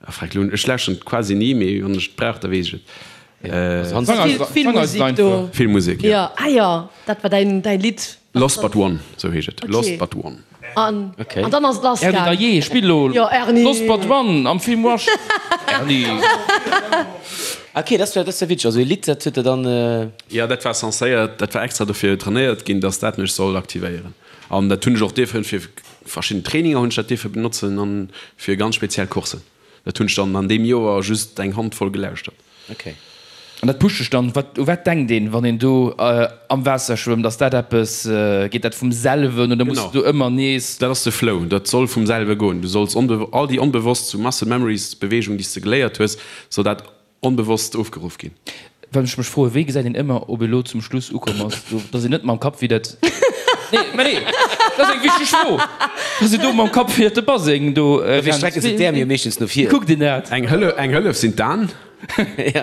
Ah freck, lo, ech lauschteren et quasi ni, mee wann ech et brauch, da weess ech et. Vill Musek do. Vill Musek, jo. Jo, ah jo, dat war däin, däin Lidd. Lost But One, sou heescht et. Lost But One. An, an dann ass et lass Erni, gaang. da jee, spill lo Jo, Erni. Lost But One am Film Rush. Erni. Ok, dat war, dat war witzeg. Also e Lidd, dat huet der dann. Jo, dat war censéiert, dat war extra dofir trainéiert ginn, dass dat mech soll aktivéieren. An dat hunn ech och dierfen fir verschidden Traininger hunn ech dat dierfe benotzen an fir ganz speziell Coursen. Dat hunn ech dann an deem Joer just eng Handvoll gelauschtert. Ok. An dat pusht dech dann. Wat, u wat denkt een, wann een do am Waasser schwëmmt? Ass dat eppes, geet dat vum selwen oder muss de do ëmmer nees? Dat ass de Flow. Dat soll vum selwe goen. Du solls onbe, all déi onbewosst, sou Muscle Memories, Beweegung, déi s de geléiert hues, soll dat Onbewosst ofgeruff ginn. Wat ech mech froen, wéi gesäit een ëmmer, ob ee lo zum Schluss ukomm ass, do, dass een net mam Kapp widder. Nee, mä nee, dat ass eng wichteg Fro, dass een do mam Kapp widder de Baseng do Dofir rennt. strecken se d'Äerm jo meeschtens no vir. Wéi kuckt een dat? Eng Hëllef, eng Hëllef sinn d'Aen. Mee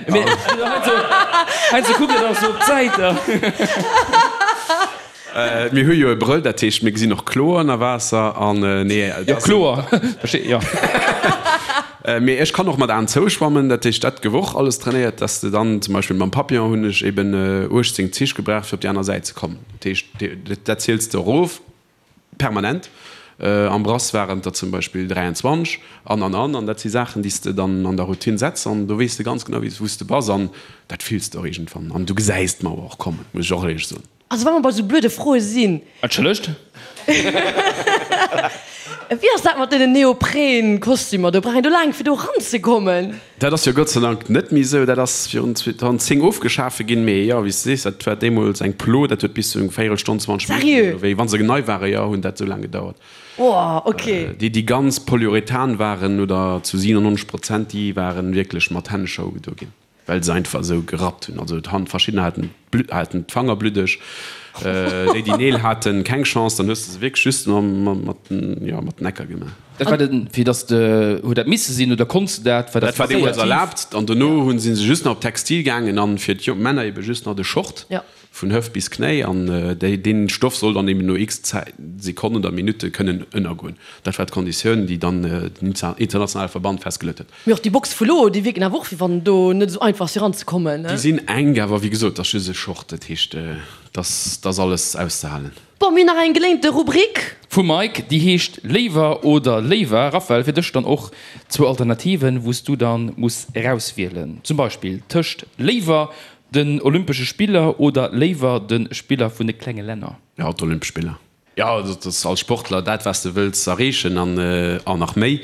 heiansdo kuckt een och sou op d'Säit. Mir hu jo e Brëll, dat heescht, mir gesinn och kloer ënner Waasser an nee. Jo, kloer, versteet, jo. Mee ech kann och mat Aen zou schwammen, dat heescht, dat gouf och alles trainéiert, dass de dann zum Beispill mam Papillon hunn ech eben 18 Zich gebraucht, fir op déi aner Säit ze kommen. Dat heescht, dat ziels de erof permanent. Am Brass waren et der zum Beispill 23 an an an. An dat si Saachen, déi s de dann an der Routine setz an do weess de ganz genau, wou s de bass an dat fills de och iergendwann an du gesäis d'Mauer och kommen, muss ech och éierlech soen. Also wa mer bei sou blöde Froe sinn. Entschëllegt? Wéi ass dat mat deenen Neopren-Kostümer do? Brauch een do laang fir do eranzekommen? Dat ass jo Gott sei Dank net méi esou. Dat ass virun 2010 ofgeschafe ginn. Mee jo, wéi s de sees, dat war deemools eng Plo, dat huet bis zu eng Véierelstonn, 20 Minutten Sérieux? oder wéi, wa se nei ware, jo, hunn dat esou laang gedauert. Oh, ok. Déi, déi ganz Polyurethan waren oder zu 97 Prozent, déi waren wierklech mat Hännescher ugedo ginn. Well se einfach esou gerappt hunn. Also d'Hand, verschiddener haten d'Blutt, haten d'Fanger bluddeg, déi déi Neel haten, keng Chance, dann hues de se wierklech just mat den, jo, mat den Ecker gemaach. Dat war den, fir dass de, huet dat misse sinn oder konns de dat, war dat Dat war deemools erlaabt an dono hunn si se just nach op Textil gaangen an fir d'Männer ebe just nach de Short. Vun Hëft bis Knéi, an déi, deen Stoff soll dann eben no x Zäit, Sekonnen oder Minutte kënnen ënnergoen. Dat war d'Konditioun, déi dann den internationale Verband festgeluet huet. Mee och déi Boxe vu lo, déi wierken awer och, wéi wann do net esou einfach ass fir eranzekommen, ne? Déi sinn enk, awer wéi gesot, dat ass just e Short, dat heescht, dat ass alles auszehalen. Bon, mir hunn nach eng geléinte Rubrik. Vum Mike, déi heescht Léiwer oder Léiwer. Raphaël, fir dech dann och zwou Alternativen, wou s du dann muss erauswielen. Zum Beispill tëscht Léiwer Den Olympesche Spiller oder léiwer de Spiller vun de klenge Länner? Jo, d'Olympesch Spiller. Jo, dat ass als Sportler dat, wat s de wëlls erreechen an nach méi.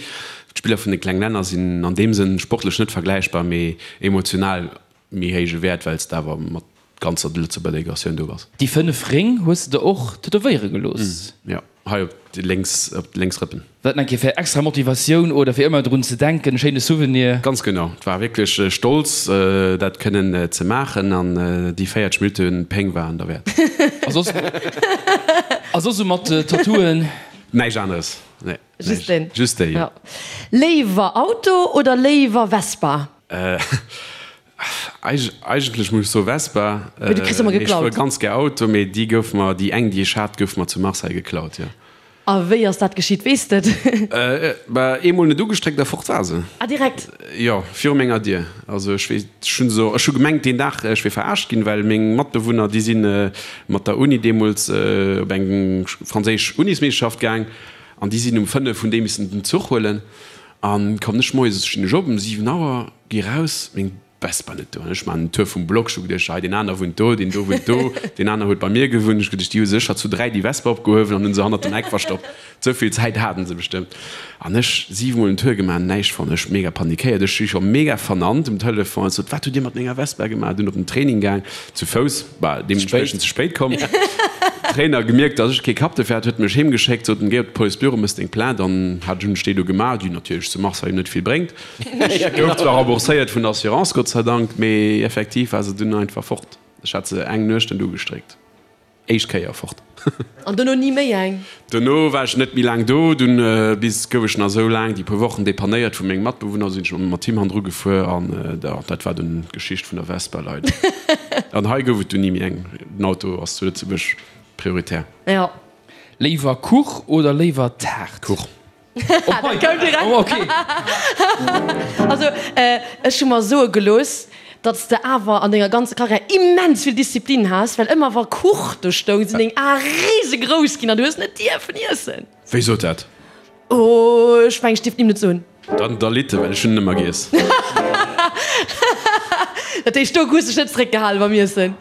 D'Spiller vun de kleng Länner sinn an deem Sënn sportlech net vergläichbar, mee emotional méi héije Wäert, well s de awer mat ganzer Lëtzebuerger Delegatioun do bass. Déi 5 Réng hues de der och tätowéiere gelooss? Jo. Hei op déi lénks, op déi lénks Rëppen. Dat eng Kéier fir extra Motivatioun oder fir ëmmer drun ze denken, e schéine Souvenir. Ganz genau, et war wierklech stolz dat kënnen ze maachen an déi 40 Minutte Péng waren derwäert. A soss, a soss esou mat Tattooen? Näischt aneres, nee. Just deen? Just déi, jo. Léiwer Auto oder léiwer Vespa? Eigentlech muss ech soe Vespa. Mee du kriss ëmmer Mee ech geklaut. fuere ganz gär Auto, mee déi gouf mer, déi eng déi ech hat, gouf mer zu Marseille geklaut, jo. A wéi ass dat geschitt, weess de et? Bah, eemol net ugestréckt a fort war se. Ah, direkt? Jo, viru menger Dier. Also ech weess, ech hunn se, ech hu gemengt deen Dag ech wier verarscht ginn, well meng Matbewunner déi si mat der Uni deemools op eng franséisch Unismeeschterschaft gaang an déi sinn um 5 hunn déi missen den Zuch huelen. An kommen ech moies, stinn ech op um 7 Auer, gi raus, meng. Vespa net do. An ech maachen den Tour vum Block, ech hu geduecht, hei deen aner wunnt do, deen do wunnt do, deen aner huet bei mir gewunnt. Ech hu geduecht, déi hu sécher zu 3 déi Vespa opgehuewen an hunn se hannert dem Eck verstoppt. Esou vill Zäit haten se bestëmmt. An ech 7 mol den Tour gemaach, näischt fonnt. Ech mega panikéiert, ech si scho mega vernannt um Telefon. Ech sot, wat hutt Dir mat menger Vespa gemaach? Dunn op den Training gaang, zu Fouss, bah, deementspriechend ze spéit komm. Trainer gemierkt, dass ech kee Kapp dofir hat, huet mech heem geschéckt, sot en, géi op de Policebüro, mëss deng Plainte. An hat ech hunn ech déi do gemaach, déi natierlech zu Marseille net vill bréngt. Ech gouf zwar rembourséiert vun der Assurance, Gott sei Dank, mee effektiv war se dunn einfach fort. Ech hat se eng Nuecht net ugestréckt. Éischt Kéier fort. An dono ni méi eng? Dono war ech net méi laang do. Dunn bis gouf ech nach esou laang déi puer Wochen depannéiert vu mengem Matbewunner. Sinn ech mat him hannendru gefuer an dat war dunn d'Geschicht vun der Vespa leider. An hei gouf et dunn ni méi eng. Den Auto ass zu Lëtzebuerg prioritär. Jo. Léiwer Kuch oder léiwer Taart? Kuch. Dat koum direkt. Oh, okay. Also, ech hu mer soe gelooss, datt s de awer an denger ganzer Karriär immens vill Disziplin has, well ëmmer wa Kuch do stoung, sinn deng Ae risegrouss ginn an du hues net dierfen iessen. Wie sot dat? Oh, ech mengen, ech dierf d'Nimm net soen. Dann da litt e, well ech hunn en ëmmer giess. Dat heescht, do hues dech net zeréckgehale beim Iessen?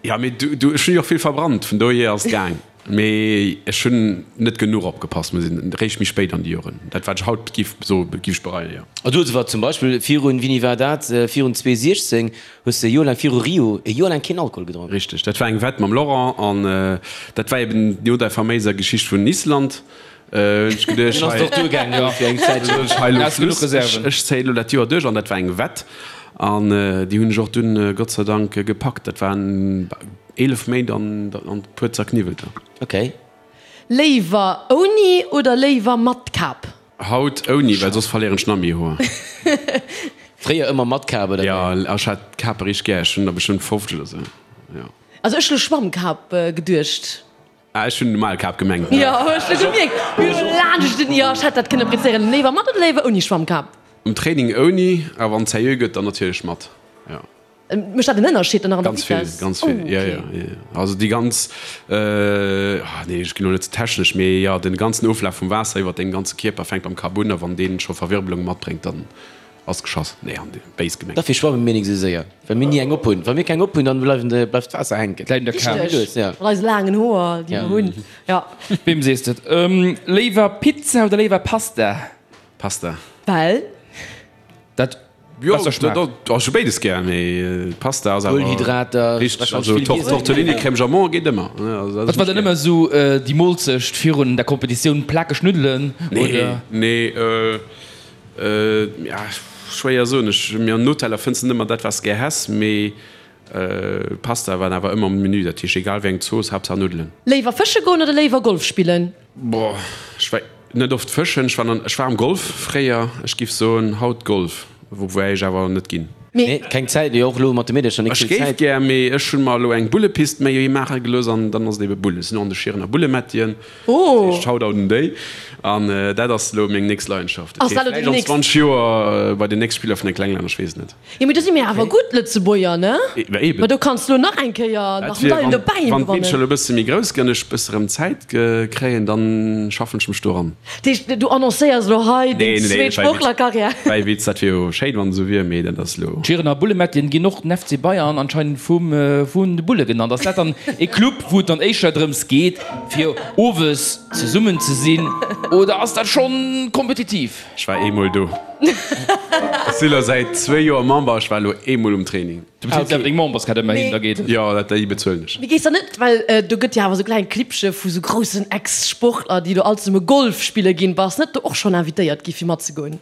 Ja, mee du, du, ech hunn jo och vill verbrannt, vun dohier ass et gaang. Mee ech hunn net genuch opgepasst, muss een, réischt méi spéit an déi Joren. Dat wat ech haut giff soe giff ech bereien, jo. A du hues awer zum Beispill virun, wéini war dat, virun 2016 hues de e Joer laang, viru Rio, e Joer laang keen Alkohol gedronk. Richteg, dat war eng Wett mam Laurent an dat war eben no der faméiser Geschicht vun Island. Hunn ech geduecht, Dunn ass et och duergaang jo fir eng Zäitchen. Ech hei elo Schluss, ech zéien elo dat Joer duerch an dat war eng Wett an déi hunn ech och dunn Gott sei Dank gepackt. Dat waren 11 Méint an e puer zerkniwwelter. Ok. Léiwer ouni oder léiwer mat Kap? Haut ouni, well soss verléieren ech nach méi Hoer. Fréier ëmmer mat Kap oder wéi? Jo, ech hat Kape richteg gär. Ech hunn der bestëmmt 50 oder sou, jo. Also ech hu Schwammkap geduecht. Ah, ech hunn normal Kap gemengt. Jo, ech hu gemierkt, mir hu laanscht den, jo, ech hätt dat kënne prezéieren. Léiwer mat oder léiwer ouni Schwammkap? Um Training ouni, a wann et seriö gëtt, dann natierlech mat, jo. Mécht dat en Ënnerscheed dann nach an der Ganz vill, Vitess? ganz vill, Oh, jo, okay. jo, jo, jo. Also déi ganz, ah nee, ech ginn elo net ze technesch, mee jo, den ganzen Oflaf vum Waasser iwwert dengem ganze Kierper fänkt beim Kap un, a wann deen scho Verwirbelunge matbréngt, dann Ass geschoss. Nee, an béis gemengt. Dofir schwamme mir nik esou séier, well mir ni eng op hunn. Wa mir keng op hunn, dann bleiwen de, bleift d'Waasser hänken. Bleift der Kap. Richteg, mat eise laangen Hoer, déi mer hunn, jo. Weem sees de et? Léiwer Pizza oder léiwer Pasta? Pasta. Well? Dat Jo, besser schmaacht. dat, ech hu béides gär, mee Pasta ass awer. Kohlenhydrater, Richteg, also Tortellini crème jambon geet ëmmer. Wat war dann ëmmer esou déi Molzecht virun der Kompetitioun? Plakeg Nuddelen oder? Nee, nee. Ja, schwéier soen. Ech, mir an Hoteller fënns de net ëmmer dat wat s de gär häss, mee Pasta war awer ëmmer um Menü. Dat heescht egal wéi eng Zooss, Haaptsaach Nuddelen. Léiwer fësche goen oder léiwer Golf spillen? Boah, ech war net oft fëschen. Ech war an, ech war am Golf fréier. Ech giff soen haut Golf, woubäi ech awer net ginn. Nee, keng Zäit, jo och elo mat de Meedercher nik Ech vill géif Zäit. gär, mee ech hunn mer elo eng Bullepist méi maache gelooss an dann ass et ebe Bulle. Ech sinn och an de Schierener Bullemättien. Oh! Dat heescht Shoutout un déi. An dat ass elo meng nächst Leidenschaft. Ass dat elo Vläicht déi an nächst? 20 Joer bei den nächst Spiller vun de Klenglänner, ech weess et net. Jo, mee do si mir awer gutt Lëtzebuerger, ne? Ma eben. Ma do kanns du elo nach eng Kéier Dat nach wier, Medailen wann, dobäi wann d'Meedercher gewannen. elo e bësse méi grouss ginn an ech e bësse rëm Zäit kréien, dann schaffen ech mech do eran. Dat heescht, du annoncéiers elo hei deng Nee, nee, zweet nee, war e Witz. Sportlerkarriär? War e Witz, dat wier jo schéin, wann et esou wier, mee dat ass elo. D'Schierener Bullemättien ginn och den FC Bayern anscheinend vum, vun de Bulle genannt. Ass dat dann e Club, wou et dann éischter drëms geet, Fir owes zesummen ze sinn oder ass dat schonn kompetitiv? Ech war eemol do. Ech si lo säit zwéi Joer Member, ech war elo eemol um Training. Du bezils awer deng Memberskaart ëmmerhin, da geet et. Jo, dat déi bezuelen ech. Mee gees da net, well do gëtt jo awer sou kleng Clibbche vu sou groussen Ex-Sportler, déi do all zesumme Golf spille ginn, bass net do och schonn invitéiert gi fir matzegoen?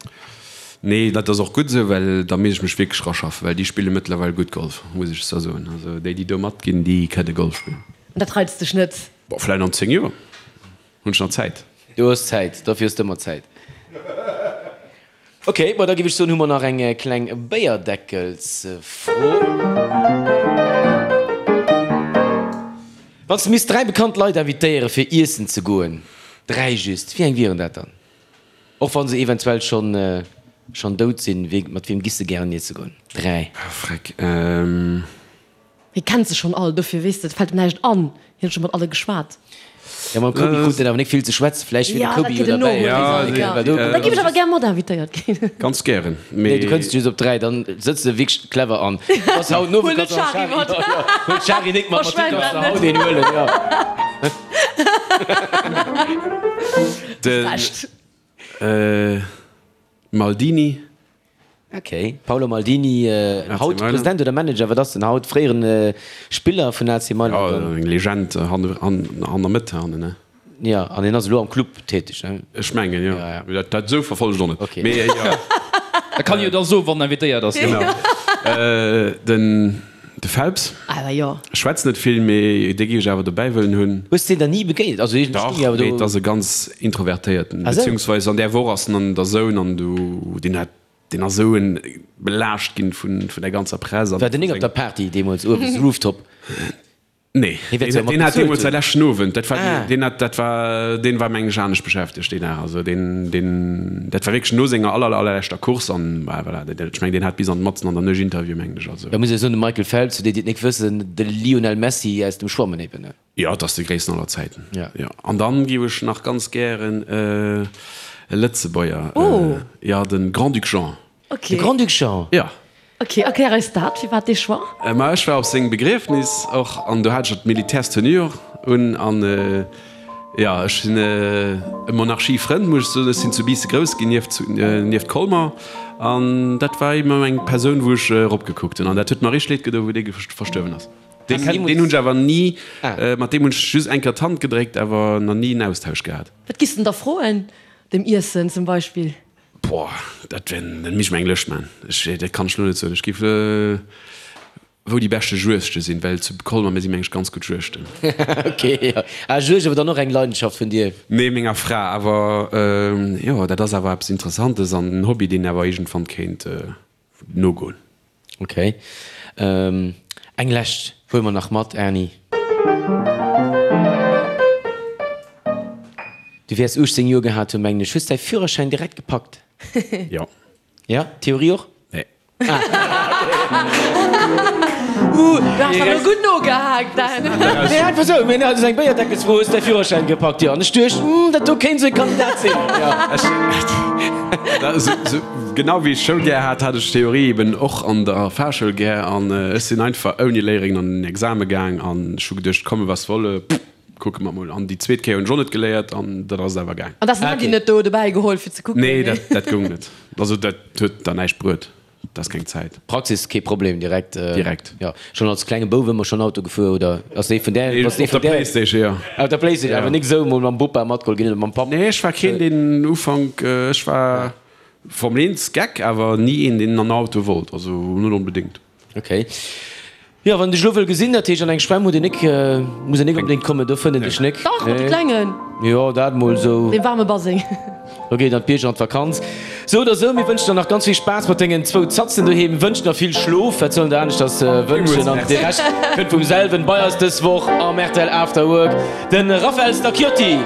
Nee, dat ass och gutt esou, well da misst ech mech wierklech raschaffen, well déi spille mëttlerweil gutt Golf, muss ech zwar soen. Also déi, déi do matginn, déi kënne Golf spillen. An dat reizt dech net? Bon, vläicht an 10 Joer hunn ech nach Zäit. Du hues Zäit, dofir hues de ëmmer Zäit. Ok, bon da géif ech soen, hu mer nach eng kleng Béierdeckelsfro. Wann s de misst 3 bekannt Leit invitéiere fir iessen ze goen, 3 just, wéi eng wieren dat dann? Och wann se eventuell schonn schonn dout sinn, wee, mat weem giss de gären iesse goen? 3. Ah, freck, ehm. Hie kennt se schonn all, dofir weess de, et fält em näischt an, hien huet scho mat alle geschwat. Jo, mam Kobi krut en awer nik vill ze schwätzen. Vläicht wier de Kobi jo derbäi. Ja, da giff ech awer gär mat invitéiert ginn. Ganz gären, mee. Nee, du kënns just op 3, dann sëtz de wierklech clever an. Bass haut no, Huel net d'Shari mat. Huel d'Shari nik mat, mat dir kanns de haut een huelen, jo. De Maldini. Ok, Paolo Maldini, haut President oder Manager, wat ass en haut? Fréieren Spiller vun AC Mailand. Jo, eng Legend an der Mëtt hannen, ne? Jo, an hien ass elo am Club täteg, ne? Ech mengen, jo. Mee dat esou verfollegt och net. Ok. Mee jo. Da kann jo da soen, wann en invitéiert ass. Genau. Den De Phelps. Awer jo. Ech schwätzen net vill, mee dee géif ech awer dobäi wëllen hunn. Hues de deen dann ni begéint? Also iergendwéi Dach, stoung jo awer mee do. et ass e ganz introvertéierten, Ah sou. beziehungsweise an där Woch ass en an der Zone an du, deen hat, deen ass esou en belaascht ginn vun, vun der ganzer Press an War den vu nik op sengem. der Party deemools uewen, Rooftop? Nee, Hie wäert deen, se jo mat deen hat bezuelt deemools säi hunn. leschten Owend, dat war, Ah. deen hat, dat war, deen war meng ech anescht beschäftegt deen Dag, also deen, deen, dat war wierklech no senger aller, allerleschter Course an, bah, voilà, dat, ech meng deen hat bis an matzen an der Nuecht Interview mengen ech, also. Da muss ech soen, de Michael Phelps, fir déi, déi et nik wëssen, de Lionel Messi aus dem Schwammen eben, ne? Jo, et ass de gréissten aller Zäiten. Ja. Jo. An dann géif ech nach ganz gären e Lëtzebuerger, Oh. jo, de Grand-Duc Jean. Okay. De Grand-Duc Jean? Jo. Ok, erklär eis dat, firwat dee Choix? Ma ech war op sengem Begriefnis och an do hat ech d'Militärstenue och un an jo, ech sinn e Monarchiefrënd, muss ech soen. Ech sinn zu Biissen grouss ginn, nieft nieft Colmer an dat war ëmmer eng Persoun, wou ech eropgekuckt hunn an dat huet mer richteg leed gedoen, wou dee verstuerwen ass. Deen deen hunn ech awer ni, mat deem hunn ech just eng Kéier d'Hand gedréckt, awer nach ni en Austausch gehat. Wat giss de da froen? Dem Iessen zum Beispill? Boah, dat wär, dat misst ech mer eng Lëscht man. Ech, dat kann ech lo net soen. Ech giff, wou déi beschte Juegte sinn, well zu Colmer, mir si meng ech ganz gutt Juegten. Ok, jo. Ah, Juegd awer dann och eng Leidenschaft vun dir? Nee, menger Fra. Awer jo, dat ass awer eppes Interessantes an en Hobby, deen awer iergendwann kéint nogoen. Ok. Eng lescht huele mer nach mat, Erny. Du wäers 18 Joer gehat hunn, mengen ech. Hues däi Führerschäin direkt gepackt? Jo. Ja? Theorie och? Nee. Uh, du has awer gutt nogehaakt, Dan. Nee, einfach esou. Mir haten eng Béierdeckelsfro, Hues däi Führerschäin gepackt? Jo. An ech duecht, Hm, dat do kéint esou e Kandidat sinn. Jo. Genau wéi ech Schoul gär hat, hat ech Theorie eben och an der Fahrschoul gär an ech sinn einfach ouni Léierin an den Exame gaang an ech hu geduecht, komme was wolle, kucke mer mol. An déi zweet Kéier hunn ech och net geléiert an dat ass et awer gaang. An da ass den Handy net do dobäi geholl fir ze kucken? Nee, dat dat goung net. Also dat huet der näischt bruet, dat ass keng Zäit. Praxis kee Problem, direkt? Direkt. Jo, schonn als klenge Bouf ëmmer schonn Auto gefuer oder ass dee vun där, bass dee vun Op der där? Playstation, jo. Op der Playstation, awer nik esou mol mam Bopa matgeholl ginn oder mam Papp? Nee, ech war keen deen Ufank, ech war Formel 1 Geck, awer ni een deen an Auto wollt, also net onbedéngt. Ok. Jo, wann een dech elo wëll gesinn, dat heescht an eng Schwämm huet een nik, muss een nik onbedéngt kommen, do fënnt een dech nik. Dach, mat de Klengen. Jo, dat mol sou. Dee waarme Baseng. Lo geet et an d'Bierger an d'Vakanz. Sou oder sou, mir wënschen der nach ganz vill Spaass mat dengen zwou Zatzen doheem, wënschen der vill Schlof, wat soll een der aneschters wënschen, an de Rescht kënnt vum selwen. Bei eis dës Woch am rtl After Work de Raphael Stacchiotti.